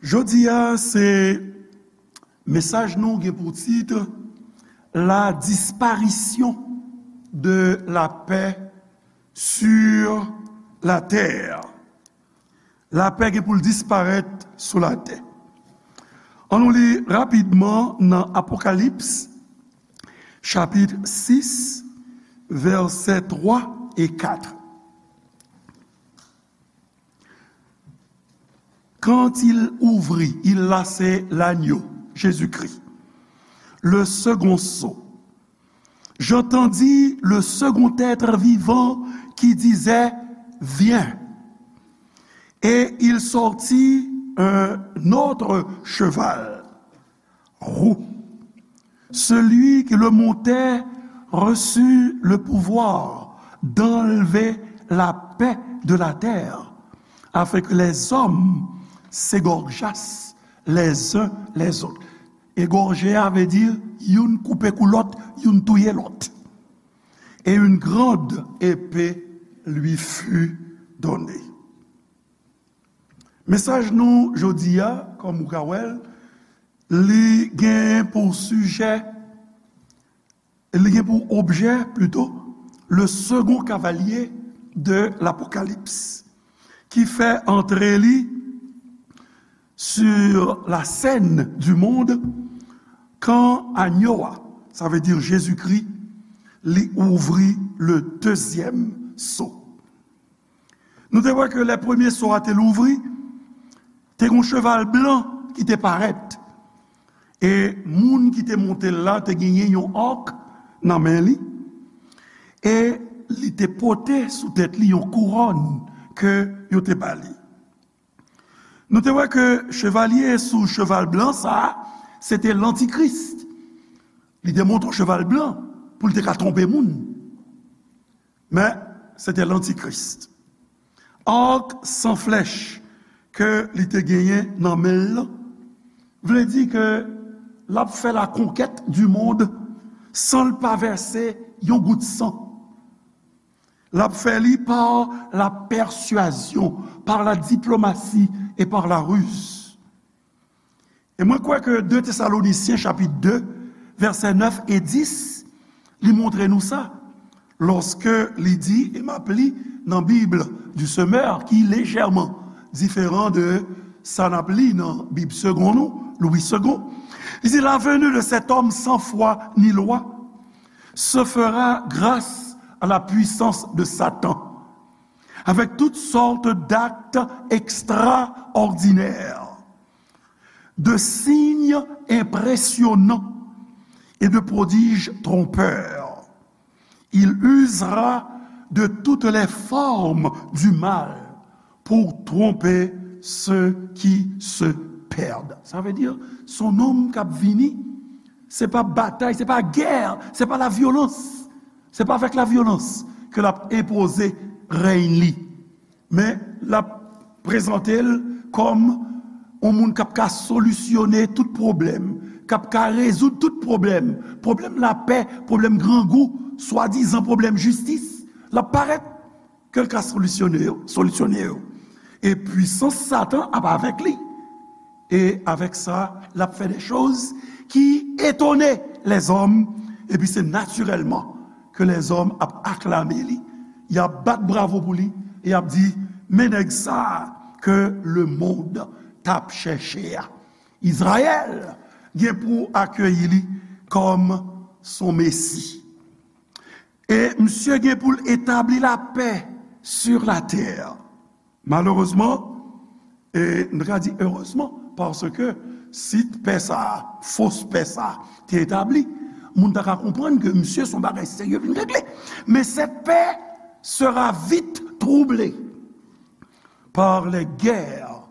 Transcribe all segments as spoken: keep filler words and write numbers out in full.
Jodi a, se mesaj nou gen pou tit: La disparition de la paix sur la terre. Lapè gen pou l disparèt sou latè. Ann nou li rapidman nan Apokalips, chapit sis, vèsè twa e kat. Quand il ouvrit, il, là, c'est l'agneau, Jésus-Christ, le second sceau, j'entendis le second être vivant qui disait : Viens. Et il sortit un autre cheval roux. Celui qui le montait reçut le pouvoir d'enlever la paix de la terre, afin que les hommes s'égorgeassent les uns les autres. Egòje a vle di youn koupe kou lòt, youn touye lòt. Et une grande épée lui fut donnée. Mesaj nou jodi a, kòm ou ka wè l, li gen pou sijè, li gen pou objè, plito, le second cavalier de l'Apocalypse, ki fè antre li sur la scène du monde kan anyo a, sa vle di Jezikri, li ouvri le deuxième sceau. Nou te wè ke lè premye sceau a te louvri, te gen yon cheval blan ki te parèt. E moun ki te monte l la te genyen yon arc nan men li. E li te pote sou tèt li yon kouwòn ke yo te ba li. Nou te wè ke chevalye sou cheval blan sa a, se te lantikris. Li te monte yon cheval blan pou l te ka twonpe moun. Men, se te lantikris. Arc sans flèche ke li te genyen nan men l lan, vle di ke l ap fè la conquête du monde san l pa vèse yon gout san. L ap fè li par la persuasion, par la diplomatie et par la ruse. E mwen kwè ke de Tesalonisyen chapit de, vèsè nèf e dis, li montre nou sa, lòske li di, e m ap li nan Bib du Semeur, ki lejèman diferan de sa n ap li nan Bib Segond nou, Louis Segond. Li di, la venue de cet homme sans foi ni loi se fera grâce à la puissance de Satan, avec toutes sortes d'actes extraordinaires, de signes impressionnants et de prodiges trompeurs. Il usera de toutes les formes du mal pour tromper ceux qui se perdent. Sa vle di, se yon nonm k ap vini, se pa batay, se pa gè, se pa lavyolans, se pa avèk lavyolans ke l ap enpoze rèy li. Men, l ap prezante l kòm yon moun k ap ka solisyone tout pwoblèm, k ap ka rezoud tout pwoblèm, pwoblèm lapè, pwoblèm grangou, swadizan pwoblèm jistis. L ap parèt ke l ka solisyone yo, solisyone yo. E pwisans Satan ap avèk li. E avèk sa, l ap fè de choz ki etone lèzòm, epi se natirèlman ke lèzòm ap aklame li, y ap bat bravo pou li, e y ap di, men nèg sa a ke lemonn t ap chèche a. Izrayèl gen pou akeyi li kòm son Mesi. E misye gen pou l etabli lapè sur la terre. Malerezman, e n ta ka di erezman, paske si pè sa a, fos pè sa a, te etabli, moun ta ka konprann ke misye se yon bagay serye vin regle. Men cette paix sera vite troublée par les guerres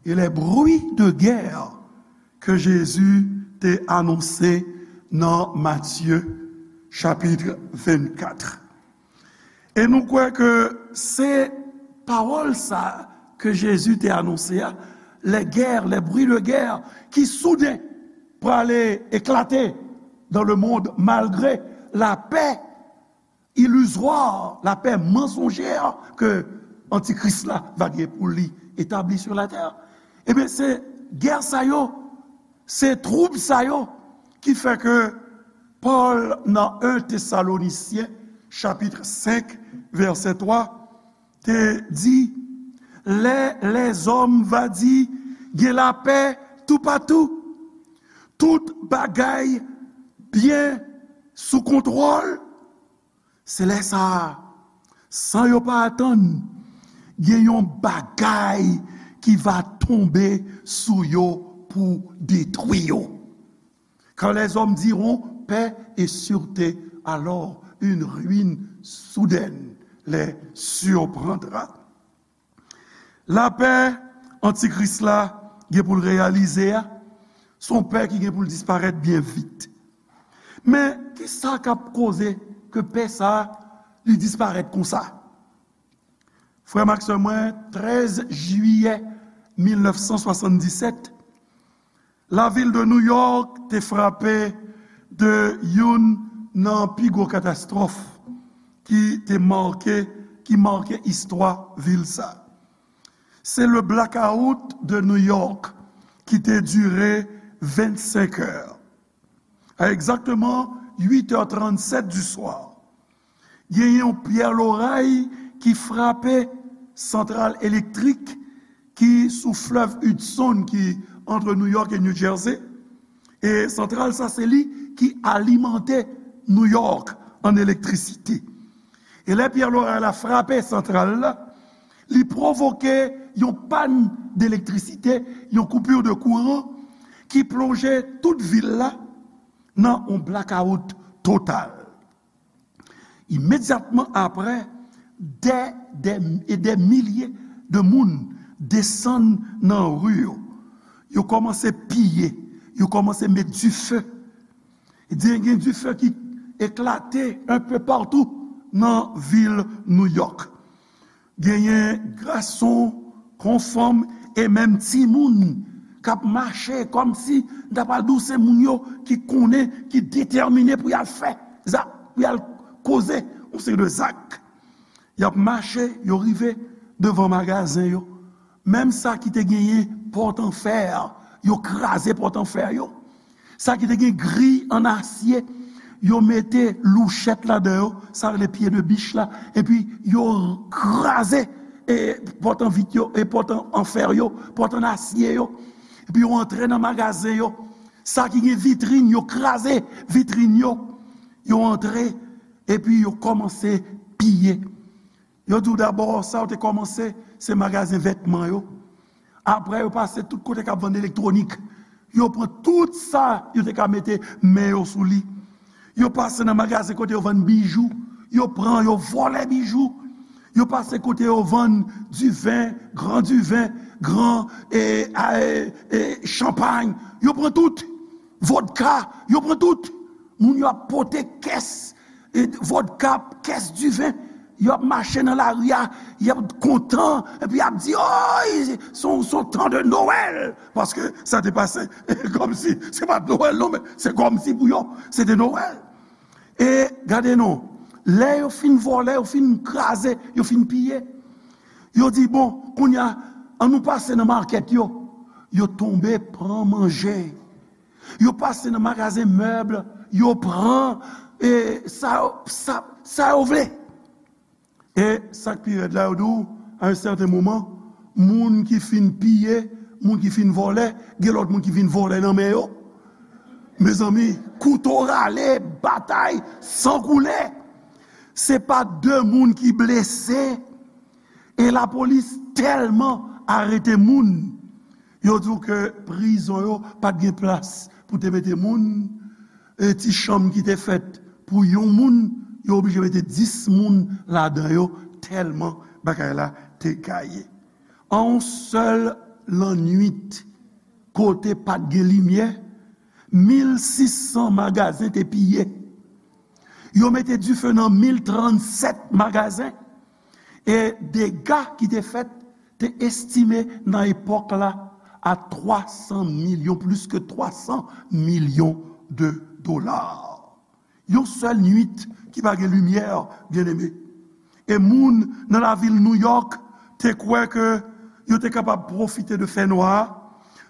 et les bruits de guerre ke Jezi te anonse nan Matye chapit vennkat. E nou kwè ke se pawòl sa ke Jezi te anonse a, les guerres, les bruits de guerre, ki souden prale eklate dans le monde malgre lapè ilizwa, lapè mansonjè ke antikris la va gen pou li etabli sur la terre. Ebyen, se Gè sa yo, se twoub sa yo ki fè ke Pòl nan en Tesalonisyen chapit senk vèsè twa te di, lè lèzòm va di gen lapè toupatou, tout bagay byen sou kontwòl, se lè sa a, san yo pa atann, gen yon bagay ki va tonbe sou yo pou detwi yo. Quand les hommes diront paix et sûreté, alors une ruine soudaine les surprendra. Lapè Antikris la gen pou l reyalize a, se yon pè ki gen pou l disparèt byen vit. Men, ki sa k ap koze ke pè sa a, li disparèt konsa? Frè m ak sè mwen, trèz jiyè mil nèf san swasanndisèt, lavil de New York te frape de youn nan pi gwo katastwòf ki te make, ki make istwa vil sa. Se le blackout de New York ki te dire vennsenk è. A egzakteman uit è trannsèt di swa, genyen yon pyè loray ki frape santral elektrik ki sou flèv Hudson, ki antre New York e New Jersey. E santral sa, se li ki alimante New York an elektrisite. E lè pyè loray la frape santral la, li pwovoke yon pàn delektrisite, yon coupure de courant, ki plonje tout vil la nan yon blakawout total. Imedyatman apre, dè, dè, e dè milye de moun desann nan ri yo. Yo kòmanse piye, yo kòmanse met dife. Gen, gen dife ki eklate un peu partout nan vil New York. Genyen gason kon fanm e menm timoun k ap mache kòmsi, m ta pral di w, se moun yo ki konnen, ki detèmine pou y al fè zak, pou y al koze yon seri de zak. Y ap mache, yo rive devan magazen yo. Menm sa ki te genyen pòt an fè, yo kraze pòt an fè yo. Sa ki te gen gri an asye, yo mete louchèt ladan yo, sa rele pye de bich la, epi yo kraze e pòt an vit yo, e pòt an, an fè yo, pòt an asye yo. Epi yo antre nan magazen yo. Sa ki gen vitrin, yo kraze vitrin yo. Yo antre, epi yo kòmanse piye. Yo di w dabò, sa yo te kòmanse, se magazen vètman yo. Apre, yo pase tout kote k ap vann elektwonik. Yo pran tout sa yo te ka mete men yo sou li. Yo pase nan magazen kote yo vann bijou. Yo pran, yo vòlè bijou. Yo pase kote yo vann diven, gran diven, gran, e, a, e, e, chanpay. Yo pran tout. Vodka, yo pran tout. Moun yo ap pote kès, e, vodka, kès diven. Yo ap mache nan lari a, y ap kontan, epi y ap di, oy, se yon, se yon tan de Nowèl. Paske sa te pase kòmsi, se pa t Nowèl non, men se kòmsi pou yo, se te Nowèl. E gade non, lè yo fin vòlè, yo fin kraze, yo fin piye, yo di, bon, kounye a, ann nou pase nan makèt yo. Yo tonbe pran manje. Yo pase nan magazen mèb, yo pran, e, sa, sa, sa yo vle. E sa k pi rèd la, yo di w, a yon sèten moman, moun ki fin piye, moun ki fin vòlè, gen lòt moun ki vin vòlè nan men yo. Mezanmi, kouto rale, batay, san koule. Se pa de moun ki blese, e lapolis tèlman arete moun, yo di w ke prizon yo pa t gen plas pou te mete moun, e ti chanm ki te fèt pou yon moun, yo oblije mete dis moun ladan yo, tèlman bagay la te gaye. An yon sèl lannwit, kote pa t gen limyè, mil sis san magazen te piye. Yo mete dife nan mil trannsèt magazen. E dega ki te fèt te estime nan epòk la a twa san milyon, plis ke twa san milyon de dola. Yon sèl nwit ki pa gen limyè, byeneme. E moun nan lavil New York te kwè ke yo te kapab pwofite de fènwa a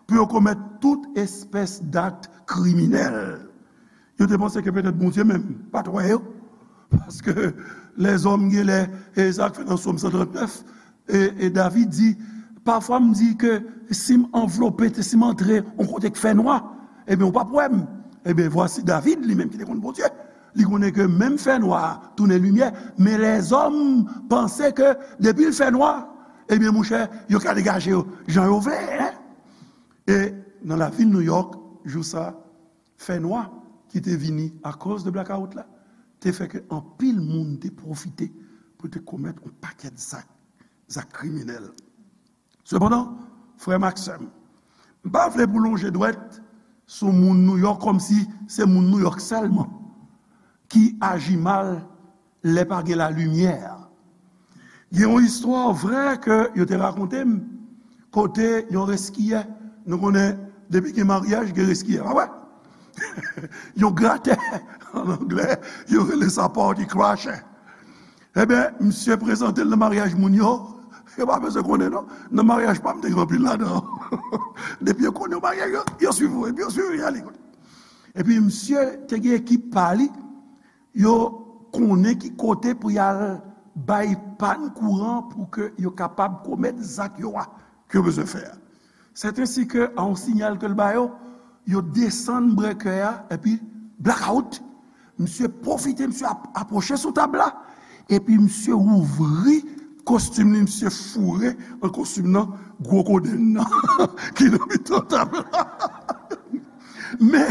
pou yo komèt tout espès d'akt kriminèl. Yo te panse ke petèt Bondye menm pa t wè yo. Paske lèzòm genlè, e sa k fèt nan Sòm san trannèf, e, e David di, pafwa m di ke si m anvlope, si m antre yon kote k fè nwa, ebyen, ou p ap wè m. Ebyen, vwasi David, li menm ki te konn Bondye, li konnen ke menm fè nwa a tounen limyè, men lèzòm panse ke depi l fè nwa, ebyen, monchè, yo ka degaje yo jan yo vle, en. E nan lavil Nouyòk, jou sa, fè nwa ki te vini akoz de blakawout la, te fè ke anpil moun te pwofite pou te komèt yon pakèt zak, zak kriminèl. Sepandan, frè m ak sè m, m pa vle pou lonje dwèt sou moun Nouyòk kòmsi se moun Nouyòk sèlman ki aji mal lè pa gen lalimyè. Gen yon istwa vrè ke yo te rakonte m, kote yon reskiyè, nou konnen, depi gen maryaj, gen reskiyè, pa vre? Yon gratè, an anglè, yo rele sa party crasher. Ebyen, misye prezante l nan maryaj moun yo, yo pa bezwen konnen non. Nan maryaj pa m, te gen anpil ladan. Depi yo konnen yon maryaj, yo, yo swiv ou, epi yo swiv ou, y ale kote. Epi misye te gen ekip pa li, yo konnen ki kote pou y al bay pàn kouran pou ke yo kapab komèt zak yo a, ke yo bezwen fè a. Sètensike a yon siyal ke l ba yo, yo desann brèkè a, epi blakawout. Misye pwofite, misye ap-, apwoche sou tab la, epi misye ouvri kostim li, misye foure an kostim nan gwo kodenn nan ki nan mitan tab la. Men,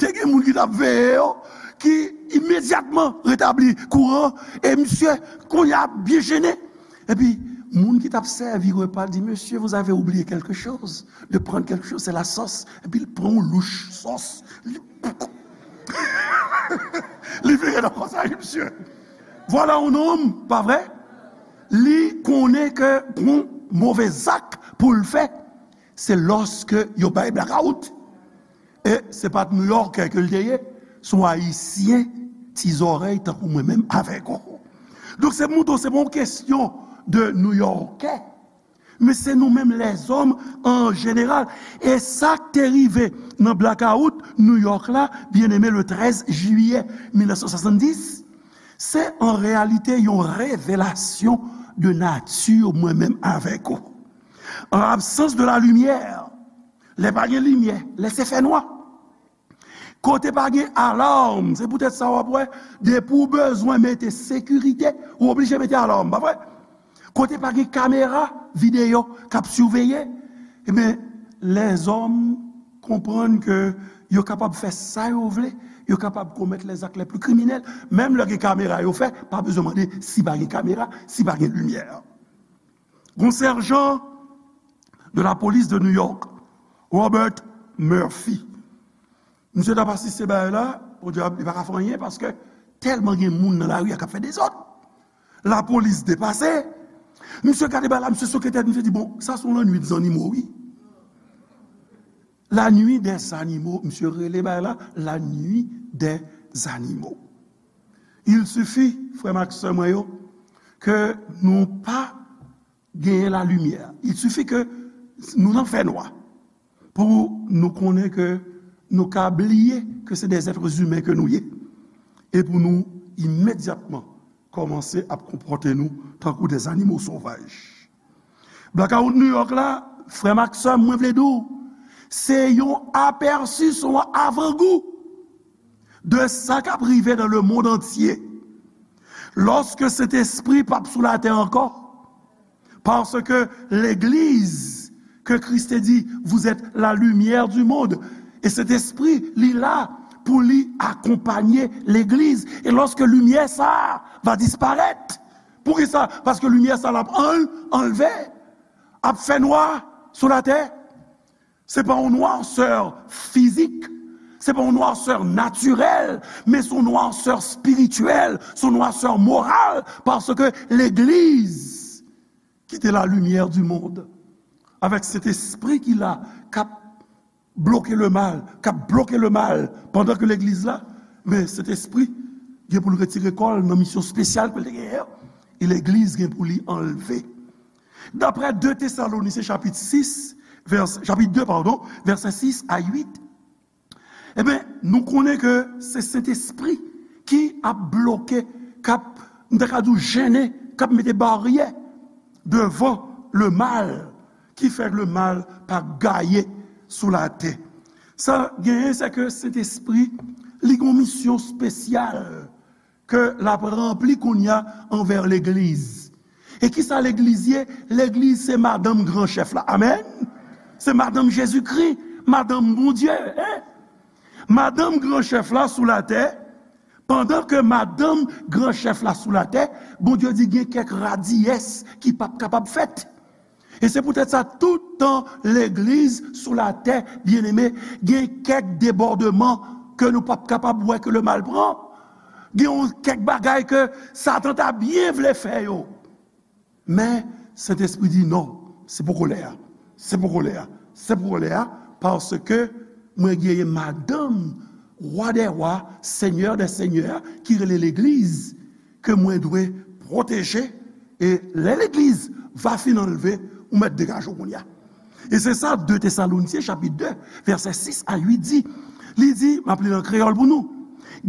te gen moun ki t ap veye yo, ki imedyatman retabli kouran, e misye, kounye a, byen jennen. Epi, moun ki t ap sèvi repa di, Monsieur, vous avez oublié quelque chose, de prendre quelque chose, c'est la sauce. Epi, l pran yon louch sòs. Li, li vire nan kòsaj misye. Vwala yon nonm, pa vre? Li konnen ke gon move zak pou l fè, se lòske yo bay blakawout. E se pa t Nouyòkè ke l te ye, se yon Ayisyen ti zòrèy tankou mwen menm avèk ou. Donk, se pou montre w, se pa yon kesyon de Nouyòkè, men se nou menm lèzòm an jeneral. E sa k te rive nan blakawout Nouyòk la, byeneme, le trèz jiyè mil nèf san swasanndis, se an reyalite yon revelasyon de nati mwen menm avèk ou. An absans de la limyè, lè pa gen limyè, lè se fè nwa, kote pa gen alam, se poutèt sa w ap wè, depi w bezwen mete sekirite, ou oblije mete alam, pa vre? Kote pa gen kamera videyo k ap siveye, ebyen, lèzòm konprann ke yo kapab fè sa yo vle, yo kapab komèt les actes les plus criminels, menm lè gen kamera yo fè, pa bezwen mande si pa gen kamera, si pa gen limyè. Gon sèjan de la polis de New York, Robert Murphy. Misye t ap asiste bagay la, Bondye ap, li pa ka fè anyen paske tèlman gen moun nan lari a k ap fè dezòd. Lapolis depase. Misye gade bagay la, misye soke tèt, misye di, bon, sa se yon lannwit zannimo, wi. La nuit des animaux, misye rele bagay la, la nuit des animaux. Il suffit, frè m ak sè mwen yo, ke nou pa genyen lalimyè. Il suffit ke nou nan fènwa pou nou konnen ke nou ka bliye ke se des êtres humains ke nou ye. E pou nou imedyatman kòmanse ap konpòte nou tankou des animaux sauvages. Blakawout New York la, frè m ak sè m, mwen vle di w, se yon apèsi, se yon avangou de sa k ap rive dans le monde entier. Lòske Sentespri p ap sou latè ankò, paske legliz ke Kris te di, vous êtes la lumière du monde. E Sentespri, li la pou li akonpanye legliz. E lòske limyè sa a va disparèt, poukisa? Paske limyè sa a l ap anl-, anlve, ap fè nwa sou latè. Se pa yon nwasè fizik, se pa yon nwasè natirèl, men se yon nwasè espirityèl, se yon nwasè moral, paske legliz ki te la lumière du monde, avèk Sentespri ki la, k ap bloke lemal, k ap bloke lemal, pandan ke legliz la, men Sentespri gen pou l retire kò l nan misyon espesyal ke l te genyen an, e legliz gen pou li anlve. Daprè de Tesalonisyen chapit sis, vèsè, chapit de, padon, vèsè sis a uit, ebyen, nou konnen ke se Sentespri ki ap bloke, k ap, m ta ka di w, jennen, k ap mete baryè devan lemal, ki fè lemal pa gaye sou latè. Sa genyen, se ke Sentespri, li gen yon misyon espesyal ke l ap ranpli kounye a anvè legliz. E kisa legliz ye? Legliz se madanm gran chèf la. Amèn. Se madanm Jezikri, madanm Bondye, en. Madanm gran chèf la sou latè, pandan ke madanm gran chèf la sou latè, Bondye di gen kèk radiyès ki p ap kapab fèt. E se poutèt sa, tout tan legliz sou latè, byeneme, gen kèk debòdman ke nou p ap kapab wè ke lemal pran. Gen yon kèk bagay ke Satan ta byen vle fè yo. Men, Sentespri di non, se poko lè a. Se poko lè a. Se poko lè a, paske mwen genyen madanm, Wa dè wa, Senyè dè senyè, ki rele legliz, ke mwen dwe pwoteje, e lè legliz va fin anlve, ou mèt degaje w kounye a. E se sa de Tesalonisyen chapit de, vèsè sis a uit di. Li di, m ap li l an kreyòl pou nou,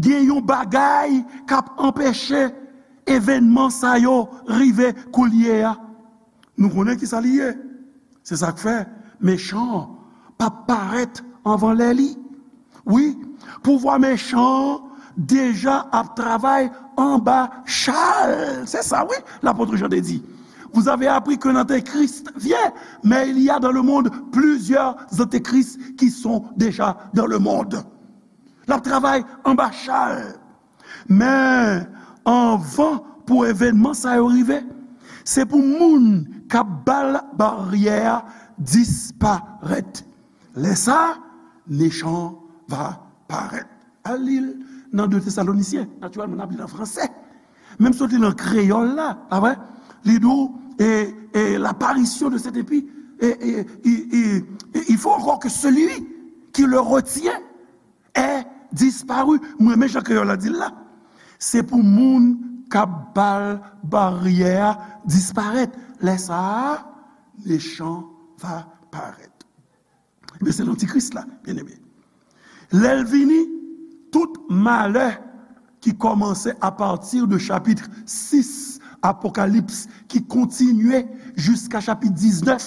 gen yon bagay k ap anpeche evènman sa yo rive koulye a. Nou konnen kisa li ye. Se sa k fè mechan an p ap parèt anvan lè li. Wi, pouvwa mechan an deja ap travay anba cha l. Se sa, wi, lapot Jan te di. Vous avez appris qu'un antéchrist vient, mais il y a dans le monde plusieurs antéchrists qui sont déjà dans le monde. L ap travay anba cha l. Men, anvan pou evènman sa yo rive, se pou moun k ap ba l baryè a disparèt. Lè sa a, mechan an va parèt. Al li l nan de Tesalonisyen. Natirèlman, n ap li l an fransè. Men m sot li l an kreyòl la, pa vre? Li di w, e, e, l'apparition de cet impie, e, e, il, il, il faut encore que celui qui le retient ait disparu. Mwen renmen jan kreyòl la di l la. Se pou moun k ap ba l baryè a disparèt. Lè sa a, mechan va parèt. Ebyen, se lantikris la, byeneme. Lè l vini, tout malè ki kòmanse apati de chapit sis Apokalips, ki kontinye jiska chapit diznèf,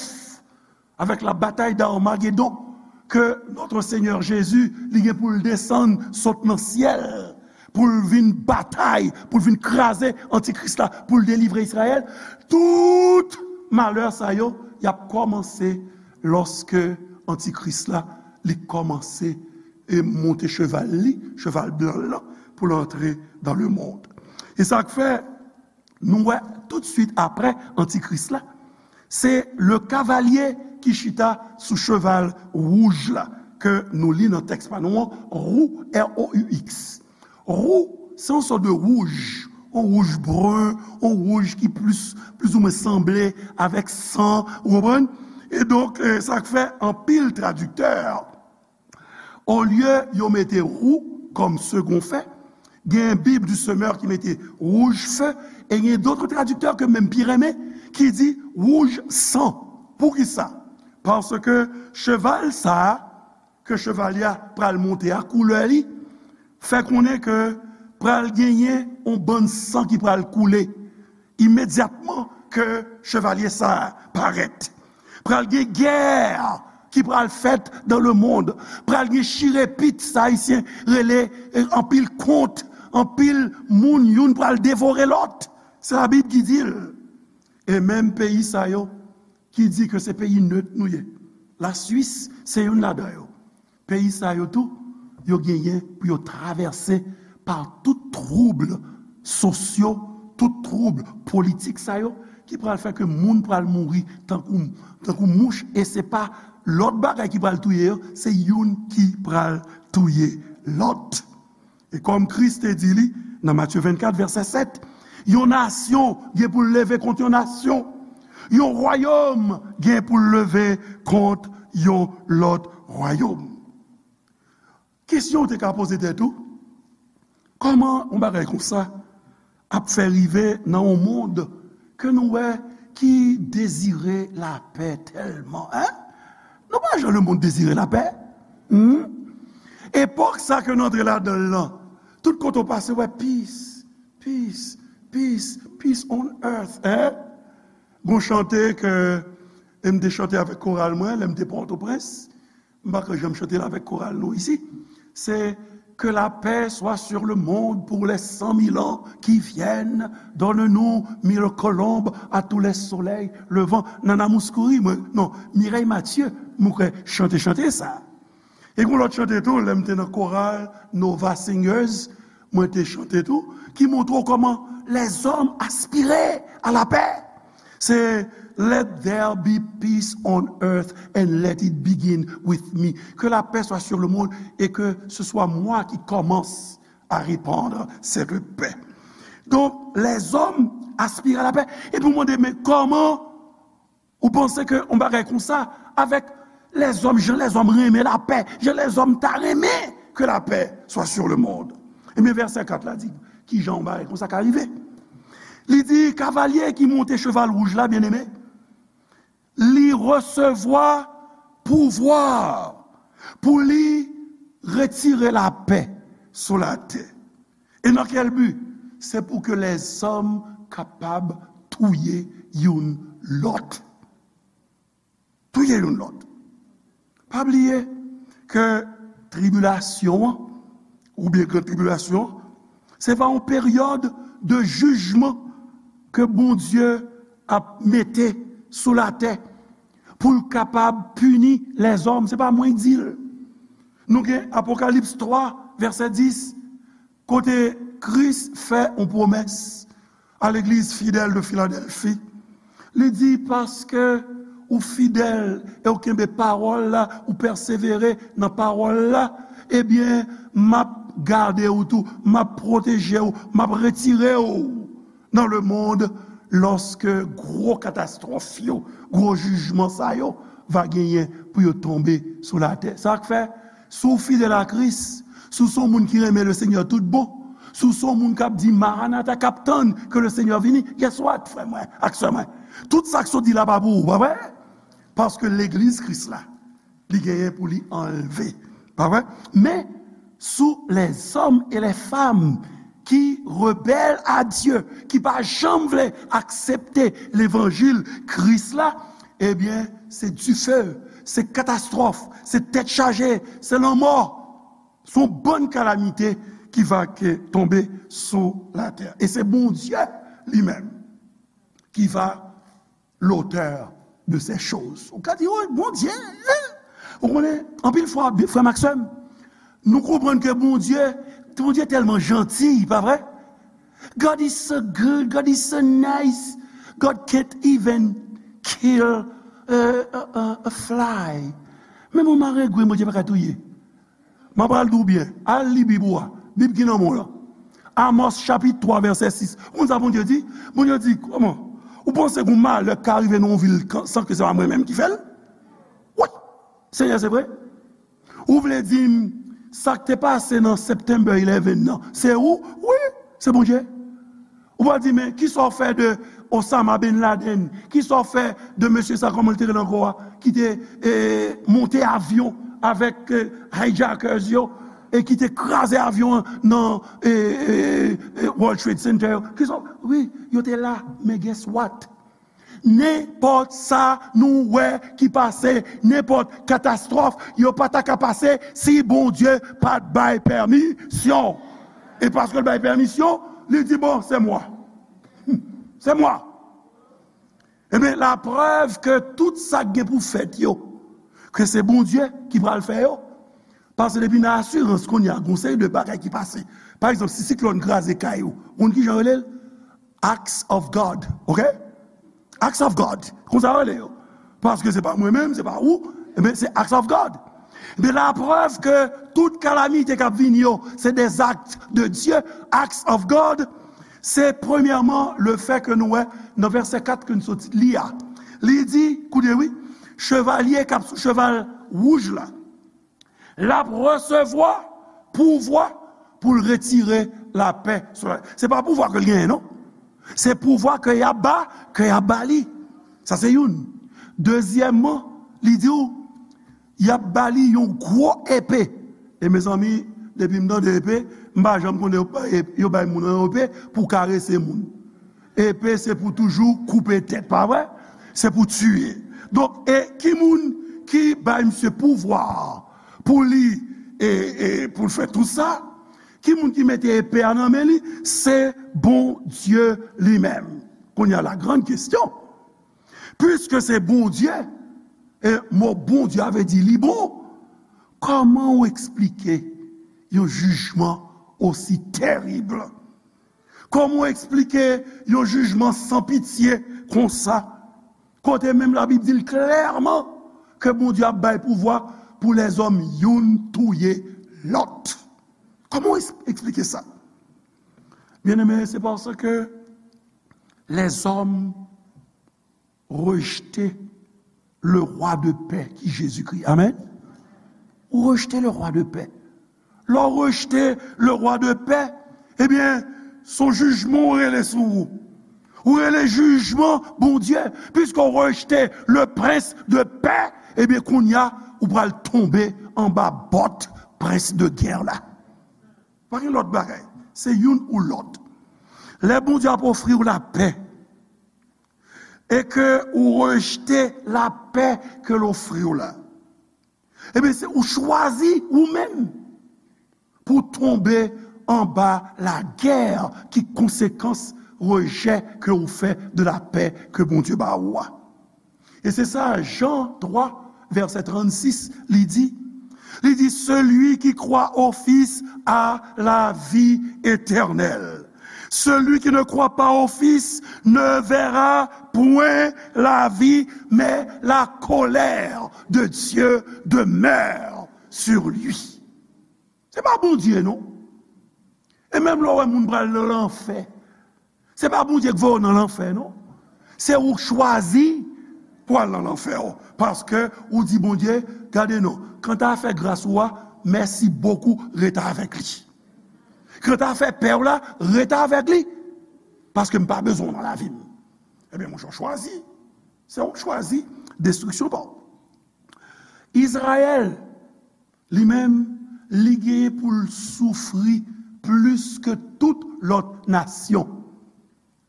avèk la batay d'Armagedon, ke Notre Seigneur Jésus, li gen pou l desann sot nan syèl, pou l vin batay, pou l vin kraze antikris la, pou l delivre Izrayèl. Tout malè sa yo, y ap kòmanse lòske antikris la, li kòmanse e monte cheval li, cheval blan l lan, pou l antre dans le monde. E sa k fè, nou wè tout swit apre antikris la, se le kavalye ki chita sou cheval wouj la, ke nou li nan tèks pa nou an, Rou, R O U X. Rou, se yon sòt de wouj, yon wouj bren, yon wouj ki plis, plizoumwen sanble avèk san, ou konprann? E donk, eh, sa k fè anpil tradiktè, olye yo mete rou kòm segon fè, gen Bible du Semeur ki mete rouge feu, e gen dòt tradiktè ke m menm pi renmen, ki di rouge sang. Poukisa? Paske cheval sa a, ke chevalye a pral monte a, koulè li fè konnen ke pral genyen yon bann san ki pral koule imedyatman ke chevalye sa a parèt. Pral gen gè ki pral fèt dans le monde. Pral gen chirepit, sa Ayisyen rele, eh, anpil kont, anpil moun, youn pral devore lòt. Se Labib ki di l. E menm peyi sa yo ki di ke se peyi net nou ye, Laswis se youn ladan yo. Peyi sa yo tou, yo genyen pou yo travèse pa tout twoub sosyo, tout twoub politik sa yo, ki pral fè ke moun pral mouri tankou, tankou mouch, e se pa lòt bagay ki pral touye yo, se youn ki pral touye lòt. E kòm Kris te di li nan Matye vennkat, vèsè sèt, yon nasyon gen pou l leve kont yon nasyon, yon wayòm gen pou l leve kont yon lòt wayòm. Kesyon w te ka poze tèt ou, kòman yon bagay konsa ap fè rive nan yon mond ke nou wè ki dezire lapè tèlman, en? Nou pa jan lemonn dezire lapè. Hmm? Epòk sa ke nou antre ladan l lan, tout kote w pase, w wè peace, peace, peace, peace on earth, hein? Gon chante ke m te chante avèk koral mwen, lè m te Pòtoprens. M pa ka janm chante l avèk koral nou isi. Se que la paix soit sur le monde pour les cent mille ans qui viennent. Donne-nous mille colombes à tous les soleils levants. Nana Mouskouri, mwen, non, Mireille Mathieu, mwen kwè chante, chante sa. E gon lòt chante tou, lè m te nan koral Nova Singers, mwen te chante tou, ki montre w kòman lèzòm aspire a lapè. Se let there be peace on earth and let it begin with me. Que la paix soit sur le monde et que ce soit moi qui commence à répandre cette paix. Donk, lèzòm aspire a lapè. Epi w mande, men kòman ou panse ke yon bagay konsa, avèk lèzòm, jan lèzòm renmen lapè, jan lèzòm ta renmen que la paix soit sur le monde? Ebyen, vèsè kat la di, kijan yon bagay konsa ka rive? Li di, kavalye ki monte cheval wouj la, byeneme, li resevwa pouvwa pou li retire lapè sou latè. E nan kèl bi? Se pou ke lèzòm kapab touye youn lòt. Touye youn lòt. Pa bliye ke tribilasyon an, oubyen gran tribilasyon an, se va yon peryòd de jijman ke Bondye ap mete sou latè pou l kapab pini lèzòm. Se pa mwen k di l. Nou gen Apokalips twa, vèsè dis, kote Kris fè yon pwomès a legliz fidèl de Filadèlfi. Li di, paske ou fidèl e ou kenbe pawòl la, ou pèsevere nan pawòl la, ebyen, m ap gade w tou, m ap pwoteje w, m ap retire w nan lemonn lòske gwo katastwòf yo, gwo jijman sa yo va genyen pou yo tonbe sou latè. Sa k fè, si w fidèl a Kris, si w se yon moun ki renmen Lesenyè tout bon, si w se yon moun k ap di Maranata, k ap tann ke Lesenyè vini, guess what, frè mwen ak sè mwen? Tout sa k sot di la pa pou ou, pa vre? Paske legliz Kris la, li genyen pou li anlve. Pa vre? Men, sous les hommes et les femmes qui rebellent à Dieu, ki pa janm vle aksepte levanjil Kris la, ebyen, se dife, se katastwòf, se tèt chaje, se lanmò. Se yon bann kalamite ki va ke tonbe sou latè. E se Bondye li menm ki va l'auteur de ces choses. Ou ka di, oh, Bondye, hein? Ou konnen, anpil fwa, frè m ak sè m, nou konprann ke Bondye, Bondye tèlman janti, pa vre? God is so good, God is so nice, God can't even kill a, a, a, a fly. Menm yon marengwen, Bondye pa ka touye. M ap pral di w byen, al li Bib ou a. Bib ki nan men w lan. Amòs chapit twa, vèsè sis. Ou konn sa Bondye di? Bondye di, kòman? Ou panse gen yon malè k ka rive nan yon vil kan, san ke se pa mwen menm ki fè l? Wi! Senyè, se vre? Ou vle di m, sa k te pase nan September eleven nan, se ou? Wi, se Bondye. Ou va di, men, kisa w fè de Osama Bin Laden? Kisa w fè de mesye sa, kòman l te rele ankò a, ki te, e, monte avyon avèk, e, hijackers yo, e ki te kraze avyon an nan, e, e, e, World Trade Center yo? Kisa w, wi, yo te la, men guess what? Nenpòt sa nou wè ki pase, nenpòt katastwòf, yo pa ta ka pase si Bondye pa t bay pèmisyon. E paske l bay pèmisyon, li di, bon, c'est moi. C'est moi. Ebyen, laprèv ke tout sa k gen pou fèt yo, ke se Bondye ki pral fè yo. Paske depi nan asirans kounye a, gon seri de bagay ki pase. Pa egzanp, si siklòn kraze kay ou, ou konn kijan yo rele l? Acts of God, ok? Acts of God, konsa yo rele yo. Paske se pa mwen menm, se pa ou, ebyen, se acts of God. Ebyen, laprèv ke tout kalamite k ap vini yo, se des actes de Dieu, acts of God, se premyèman le fè ke nou wè nan vèsè kat ke n sot li a. Li di, koute wi, chevalye k ap sou cheval wouj la, l ap resevwa pouvwa pou l retire lapè sou la. Se pa pouvwa ke l genyen, non. Se pouvwa ke y ap ba, ke y ap ba li. Sa se youn. Dezyèmman, li di w, y ap ba li yon gwo epe. E mezanmi, depi m tande epe, m pa janm konnen yo bay, yo bay moun an yon epe pou karese moun. Epe se pou toujou koupe tèt, pa vre? Se pou tiye. Donk, e ki moun ki bay misye pouvwa pou li, e, e pou l fè tout sa? Ki moun ki mete epe a nan men li? Se Bondye li menm. Kounye a, la grande question. Piske se Bondye, e mo Bondye a vle di li bon, kòman w eksplike yon jijman osi terib? Kòman w eksplike yon jijman san pitye konsa? Kote menm Labib di l klèman ke Bondye ap bay pouvwa pou lèzòm youn touye lòt. Kòman w eks-, eksplike sa? Byeneme, se paske lèzòm rejte le roi de paix ki Jezikri. Amèn. Ou rejte le roi de paix. Lè w rejte le roi de paix, ebyen, se yon jijman ou rele sou ou. Ou rele jijman Bondye, piske w rejte le prince de paix, ebyen, kounye a, ou pral tonbe anba bòt prens de gè la. Pa gen lòt bagay. Se youn ou lòt. Lè Bondye ap ofri w lapè, e ke ou rejte lapè ke l ofri w la, ebyen, se ou chwazi ou menm pou tonbe anba lagè ki konsekans rejè ke ou fè de lapè ke Bondye ba ou a. E se sa Jan twa, vèsè trannsis, li di. Li di, celui qui croit au Fils a la vie éternelle. Celui qui ne croit pas au Fils ne verra point la vie, mais la colère de Dieu demeure sur lui. Se pa Bondye, non. E menm lè w wè moun pral nan lanfè, se pa Bondye k voye w nan lanfè, non. Se ou k chwazi pou al nan lanfè, o. Paske ou di Bondye, gade non, kanta afè gras ou a, mèsi bokou, ret avèk li. Kanta afè pè w la, ret avèk li. Paske m pa bezwen w nan lavi m. Ebyen, monchè, w chwazi. Se ou k chwazi destriksyon pa w. Izrayèl, li menm, li genyen pou l soufri plis ke tout lòt nasyon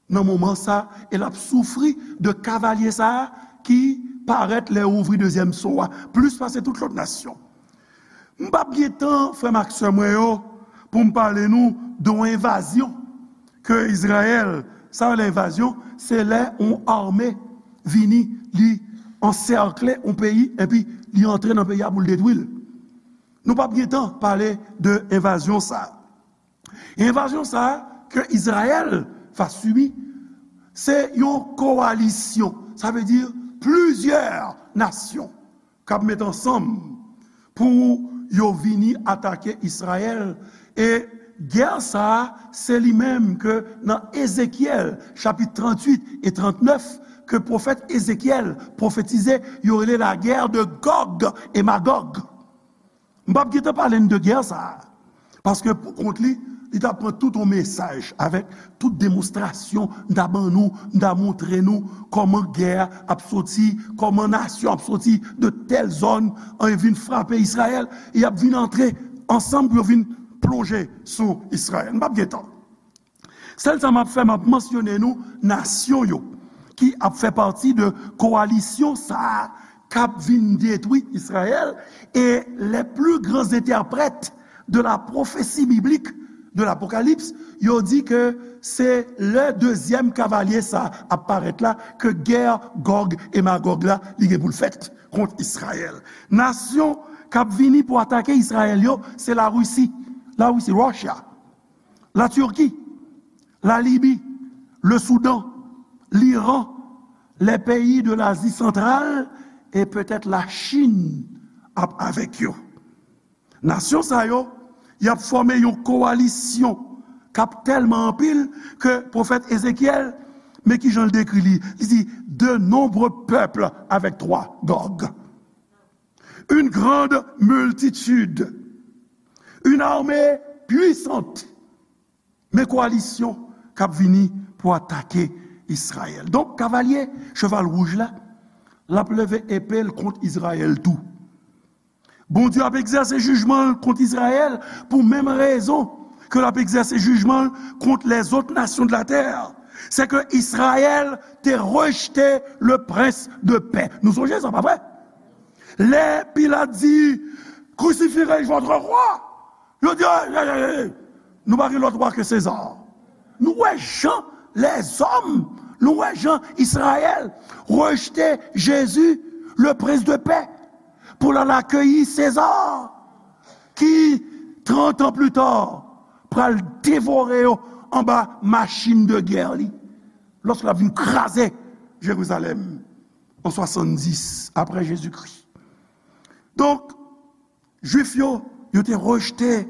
nan moman sa, e l ap soufri de kavalye sa a ki parèt lè yo ouvri dezyèm so a, plis pase tout lòt nasyon. M p ap gen tan, frè m ak sè mwen yo, pou m pale nou de yon envazyon ke Izrayèl, sa yo rele envazyon, se lè yon ame vini, li ansèkle yon peyi, epi li antre nan peyi a pou l detwi l. Nou p ap gen tan pale de envazyon sa a. Envazyon sa a ke Izrayèl va sibi, se yon kowalisyon, sa vle di plizyè nasyon k ap met ansanm pou yo vini atake Izrayèl. E gè sa a, se li menm ke nan Ezekyèl, chapit tranntuit e trannèf, ke pwofèt Ezekyèl pwofetize, yo rele la guerre de Gog e Magog. M p ap gentan pale n de gè sa a, paske pou kont li, li t ap pran tout yon mesaj avèk tout demonstrasyon m ta ban nou, m ta montre nou kòman gè a ap soti, kòman nasyon ap soti de tèl zòn, e vin frape Izrayèl, e y ap vin antre ansanm pou yo vin plonje sou Izrayèl. M p ap gentan. Sèl sa m ap fè, m ap mansyone nou nasyon yo ki ap fè pati de kowalisyon sa a k ap vin detwi Izrayèl. E les plus grands interprètes de la prophétie biblique de l'Apocalypse, yo di ke se lè dezyèm kavalye sa a ap parèt la ke gè Gòg e Magòg la, li gen pou l fèt kont Izrayèl. Nasyon k ap vini pou atake Izrayèl yo, se Larisi. Larisi, Russia. La Turquie, la Libye, le Soudan, l'Iran, les pays de l'Asie centrale et peut-être la Chine ap avèk yo. Nasyon sa yo, y ap fòme yon kowalisyon k ap tèlman anpil ke pwofèt Ezekyèl, men ki jan l dekri li? Li di, de nombreux peuples avec toi, Gog. Une grande multitude, une armée puissante. Men kowalisyon k ap vini pou atake Izrayèl. Donk, kavalye cheval wouj la, l ap leve epe l kont Izrayèl tou. Bondye ap egzèse jijman l kont Izrayèl pou menm rezon ke l ap egzèse jijman l kont lèzòt nasyon de la tè. Se ke Izrayèl te rejte le prince de paix. Nou sonje sa, pa vre? Lè Pilat di, crucifiez votre roi, yo di, ey, ey, ey, ey, nou pa gen lòt wa ke Seza. Nou wè jan lèzòm, nou wè jan Izrayèl rejte Jezi, le prince de paix, pou l al akeyi Seza, ki, trant an pli ta, pral devore yo anba machin de gè li, lòske l ap vin kraze Jerizalèm an swasanndis apre Jezikri. Donk, Jwif yo, yo te rejte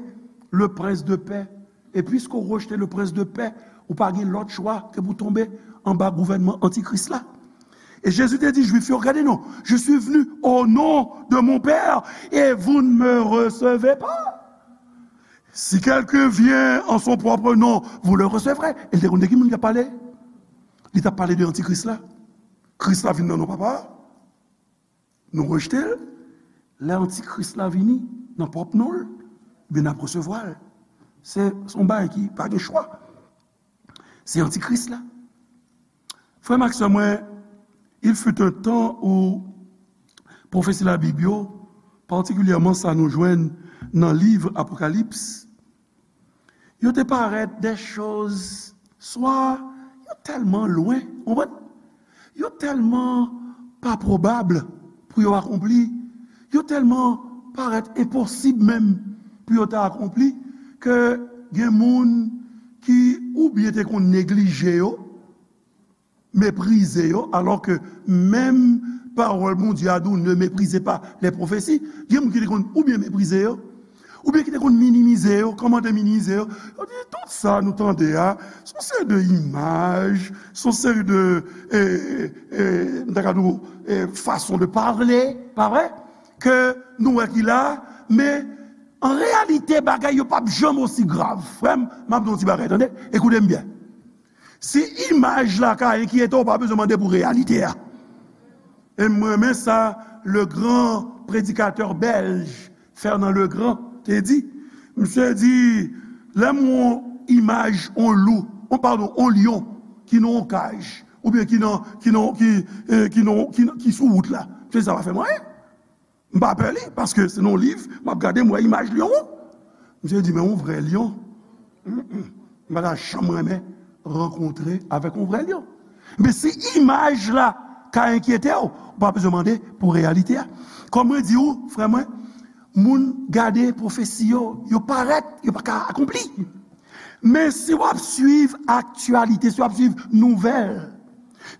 le prince de paix. E piske w rejte le prince de paix, ou pa gen lòt chwa ke pou tonbe anba gouvènman antikris la. E Jezi te di Jwif yo, gade non, je suis venu au nom de mon Père et vous ne me recevez pas. Si quelqu'un vient en son propre nom, vous le recevrez. E l te konn de ki moun k ap pale? Li t ap pale de antikris la. Kris la vin nan non papa a. Nou rejte l. Lè antikris la vini nan pwòp non l, ebyen n ap resevwa l. Se, se yon bagay ki pa gen chwa. Se antikris la. Frè m ak sè mwen, il fut un temps où pwofesi Labib yo, patikilyèman sa nou jwenn nan liv Apokalips, yo te parèt de choz, swa yo tèlman lwen, ou konprann? Yo tèlman pa pwobab pou yo akonpli, yo tèlman parèt enposib menm pou yo ta akonpli, ke gen moun ki oubyen te konn neglije yo, meprize yo, alò ke menm pawòl Bondye a di w, ne méprisez pas les prophéties. Gen moun ki te konn oubyen meprize yo, oubyen ki te konn minimize yo. Kòman te minimize yo? Yo di, tout sa nou tande a, se yon seri de imaj, se yon seri de, e, e, m ta ka di w, e, fason de pale, pa vre? Ke nou wè ki la, men an reyalite, bagay yo p ap janm osi grav. Frè m, m ap di w yon ti bagay, tande? Ekoute m byen. Si imaj la ka enkyete w, w pa bezwen mande pou reyalite a. E m renmen sa le grand predikatè bèlj Fernand Legrand te di. Misye di, lè m wè yon imaj yon lou, yon, padon, yon lyon ki nan yon kaj, oubyen ki nan, ki nan, ki, e, ki nan, ki, ki sou wout la, misye di, sa pa fè m anyen. M pa pè li, paske se nan yon liv, m ap gade, m wè imaj lyon an. Misye di, men yon vrè lyon, mm, m pa ta janm renmen rankontre avèk yon vrè lyon. Men si imaj la ka enkyete w, ou pa bezwen mande pou reyalite a. Kòm mwen di w, frè mwen, moun gade pwofesi yo, yo parèt, yo pa ka akonpli. Men si w ap swiv aktyalite, si w ap swiv nouvèl,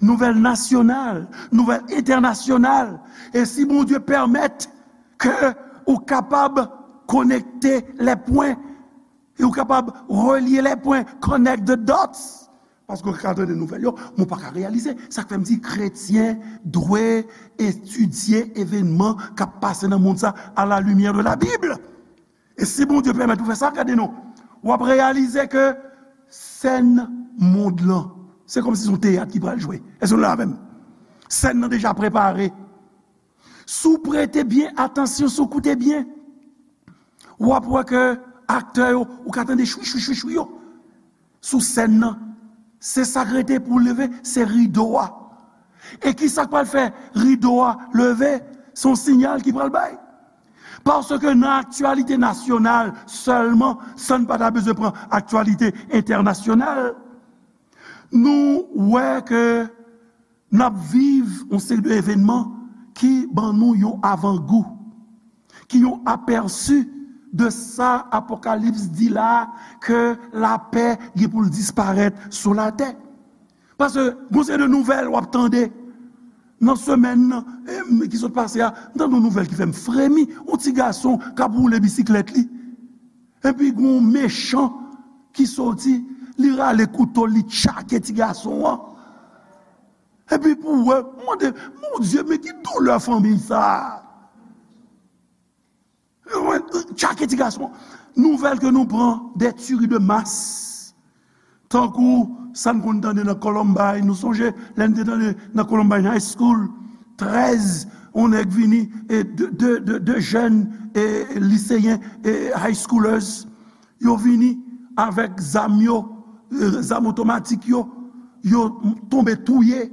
nouvèl nasyonal, nouvèl entènasyonal, e si Bondye pèmèt ke ou kapab konekte lè pwen, e ou kapab relye lè pwen, connect the dots, paske ou ka tande nouvèl yo, men ou pa ka reyalize. Sa k fè m di kretyen dwe etidye evènman k ap pase nan mond sa à la lumière de la Bible. E si Bondye pèmèt ou fè sa, gade non, w ap reyalize ke sèn mond lan, se kòmsi se yon teyat ki pral jwe. Èske nou la avè m? Sèn nan deja prepare. Si w prete byen atansyon, si w koute byen, w ap wè ke aktè yo, ou ka tande chwi, chwi, chwi, chwi yo sou sèn nan. Se sa k rete pou leve, se rido a. E ki sa k pral fè rido a leve? Se yon siyal ki pral bay. Paske nan aktyalite nasyonal sèlman, san n pa ta bezwen pran aktyalite entènasyonal, nou wè ke n ap viv yon seri de evènman ki ban nou yon avangou, ki yon apèsi de sa Apokalips di la, ke lapè gen pou l disparèt sou latè. Paske gon seri de nouvèl w ap tande nan semèn nan, em, ki sot pase a, m tande yon nouvèl ki fè m fremi. Yon ti gason k ap woule bisiklèt li. Epi gon mechan ki soti, li rale kouto, li tchake ti gason an. Epi pou w wè, m mande, Bondye, men ki doulè fanmi sa a? Tchake ti gason. Nouvèl ke nou pran de tuerie de masse. Tankou sa n konn tande nan Columbine, nou sonje lè n te tande nan Columbine High School, trèz yon nèg vini, e de, de, de, de jèn, e liseyen, e high schoolers, yo vini avèk zam yo, e zam otomatik yo, yo tonbe touye,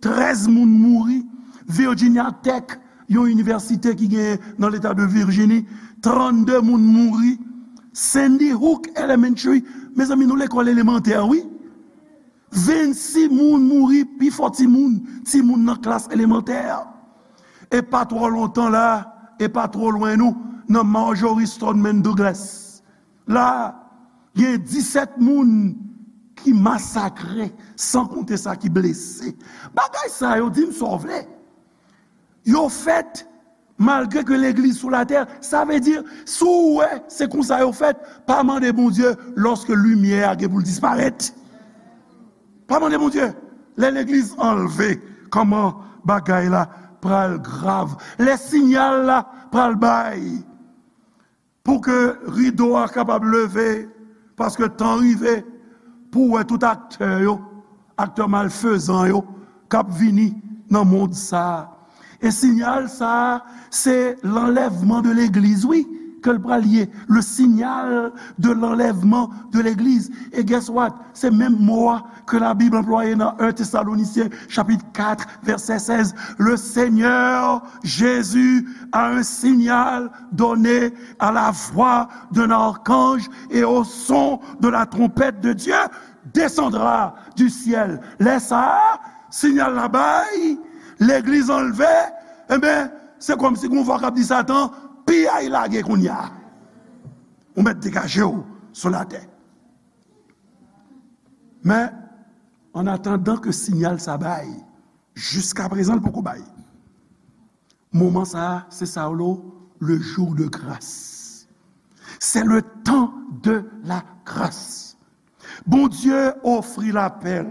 trèz moun mouri. Virginia Tech, yon inivèsite ki genyen nan leta de Virjini, trannde moun mouri. Sandy Hook Elementary, mezanmi, nou lekòl elemantè, wi. Vennsis moun mouri, pifò timoun, timoun nan klas elemantè. E pa twò lontan la, e pa twò lwen nou, nan Marjory Stoneman Douglas la, gen disèt moun ki masakre, san konte sa ki blese. Bagay sa yo, di m sa w vle. Yo fèt malgre ke legliz sou latè. Sa vle di, si w wè se konsa yo fèt, pa mande Bondye lòske limyè a gen pou l disparèt. Pa mande Bondye. Lè legliz anlve, kòman bagay la pral grav? Lè siyal la pral bay pou ke rido a kapab leve, paske tan rive pou w wè tout aktè yo, aktè malfezan yo, k ap vini nan mond sa a. E siyal sa a, se lanlèvman de legliz, wi, ke l pral ye. Le signal de l'enlèvement de l'église. E guess what? Se menm mo a ke Labib anplwaye nan en Tesalonisyen, chapit kat, vèsè sèz. Le Seigneur Jésus a un signal donné à la voix d'un archange et au son de la trompette de Dieu descendra du ciel. Lè sa a, siyal la bay, legliz anlve, enben, se kòmsi gon vwa k ap di Satan, piyay lage kounye a. Ou mèt degaje w sou latè. Men, an atandan ke siyal sa bay, jiskaprezan l poko bay. Moman sa a, se sa yo rele le jour de grâce. C'est le temps de la grâce. Bondye ofri lapè l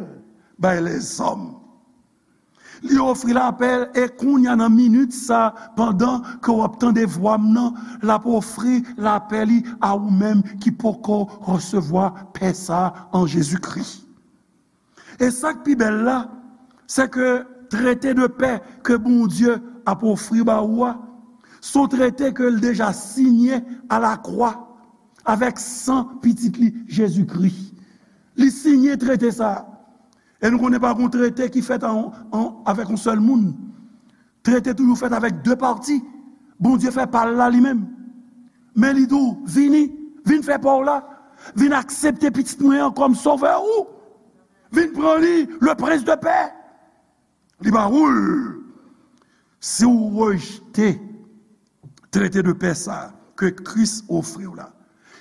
bay lèzòm. Li ofri lapè l, e kounye a nan minit sa, pandan ke w ap tande vwa m nan, l ap ofri lapè li a ou menm ki poko resevwa pè sa an Jezikri. E sa k pi bèl la, se ke trete de pè ke Bondye ap ofri ba ou a, se yon trete ke l deja siyen alakwa avèk san Pitit li, Jezikri. Li siyen trete sa a. E nou konnen pa gen yon trete ki fèt an, an, avèk yon sèl moun. Trete toujou fèt avèk de pati. Bondye fè pa l la li menm. Men li di w, vini, vin fè pa w la. Vin aksepte pitit mwen an kòm sovè ou. Vin pran li, le prince de paix. Li ba ou l. Si w rejte trete de pè sa ke Kris ofri w la,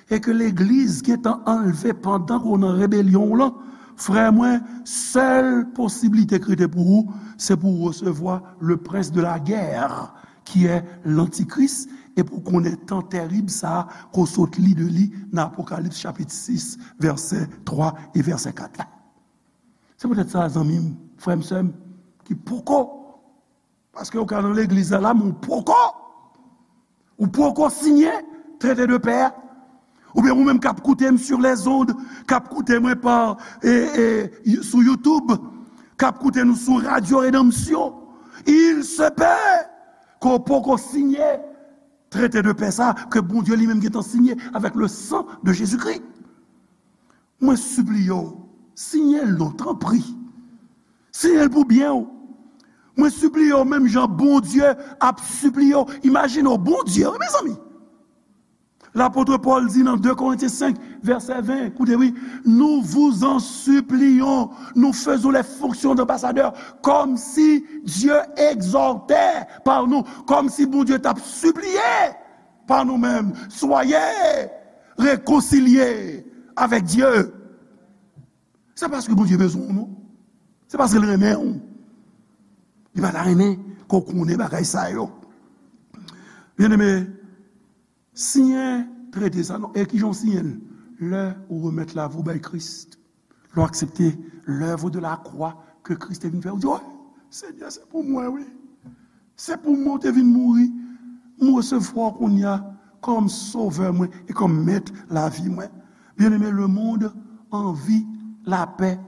e ke legliz gentan anlve pandan ke w nan rebelyon w lan, frè mwen, sèl posiblite ki rete pou ou, se pou w resevwa le prince de la guerre, qui est l'antichrist, e pou w konnen tan tèrib sa a, ke w sot li de li nan Apokalips chapit sis, vèsè twa e vèsè kat la. Se poutèt sa, zanmi m, frè m, sè m, ki poko Paske ou ka nan legliz la, la, men ou poko, ou poko siyen trete de pè a. Oubyen ou menm k ap koute m sur les ondes, k ap koute mwen pa, e, e, sou YouTube, k ap koute nou sou Radio Rédemption. Il se peut ke w poko siyen trete de pè sa, ke Bondye li menm gentan siyen avèk le sang de Jésus-Christ. Mwen sipliye w, siyen l non, tanpri. Siyen l pou byen w. Mwen sipliye w, menm jan Bondye ap sipliye w. Imajine w, Bondye, wi, mezanmi. Lapot Pòl di nan de Korentyen senk, vèsè ven, koute, wi, nous vous en supplions, nous faisons les fonctions d'ambassadeurs, comme si Dieu exhortait par nous, kòmsi Bondye t ap sipliye pa nou menm, soyez réconciliés avec Dieu. Se paske Bondye bezwen w, non. Se paske l renmen w. Li pa ta renmen ke w konnen bagay sa yo. Byeneme, siyen trete sa, non. E kijan w siyen l? Lè ou remèt lavi w bay Kris. Lè w aksepte lèv de la kwa ke Kris te vin fè, ou di, "Wi, Senyè, se pou mwen, wi. Se pou mwen w te vin mouri. M resevwa w kounye a kòm sovè mwen e kòm mèt lavi mwen." Byeneme, lemonn anvi lapè.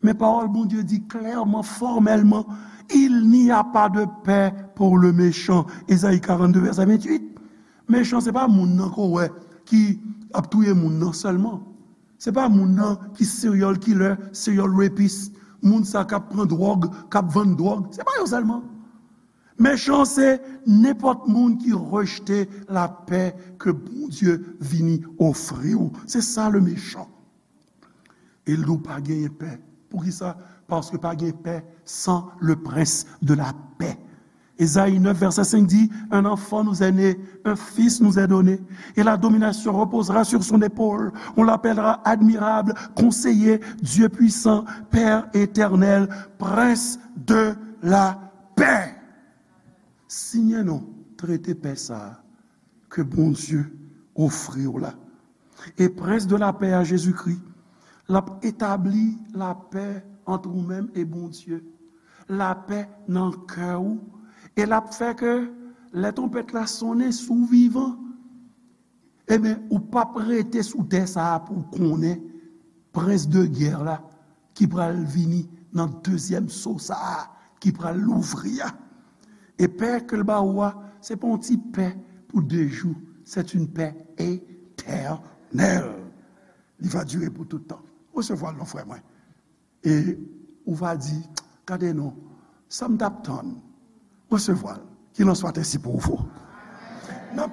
Men pawòl Bondye di klèman, fòmèlman, Il n'y a pas de paix pour le méchant. Ezayi karannde, vèsè venntuit. Mechan, se pa moun nan ke w wè ki ap touye moun nan sèlman. Se pa moun nan ki serial killer, serial rapist, moun sa k ap pran dwòg, k ap vann dwòg. Se pa yo sèlman. Mechan, se nenpòt moun ki rejte lapè ke Bondye vini ofri w. Se sa le mechan. E l di w pa genyen pè. Poukisa? Paske pa gen pè san le prince de la paix. Ezayi nèf, vèsè senk di, un enfant nous est né, un fils nous est donné, et la domination reposera sur son épaule. On l'appellera admirable, conseiller, Dieu puissant, Père éternel, prince de la paix. Siyen non, trete pè sa a ke Bondye ofri w la. E prens de lapè a, Jezikri, l ap etabli lapè ant ou menm e Bondye, lapè nan kè w, e l ap fè ke lè twonpèt la sonnen, si w vivan, ebyen, ou p ap rete sou tè sa a pou w konnen prens de gè la ki pral vini nan dezyèm so sa a ki pral louvri a. E pè ke l ba ou a, se pa yon ti pè pou de jou, c'est une paix éternelle. Li va dire pou tout tan. Resevwa l non, frè mwen. E ou va di, gade non, sa m t ap tann, resevwa l. Qu'il en soit ainsi pour vous.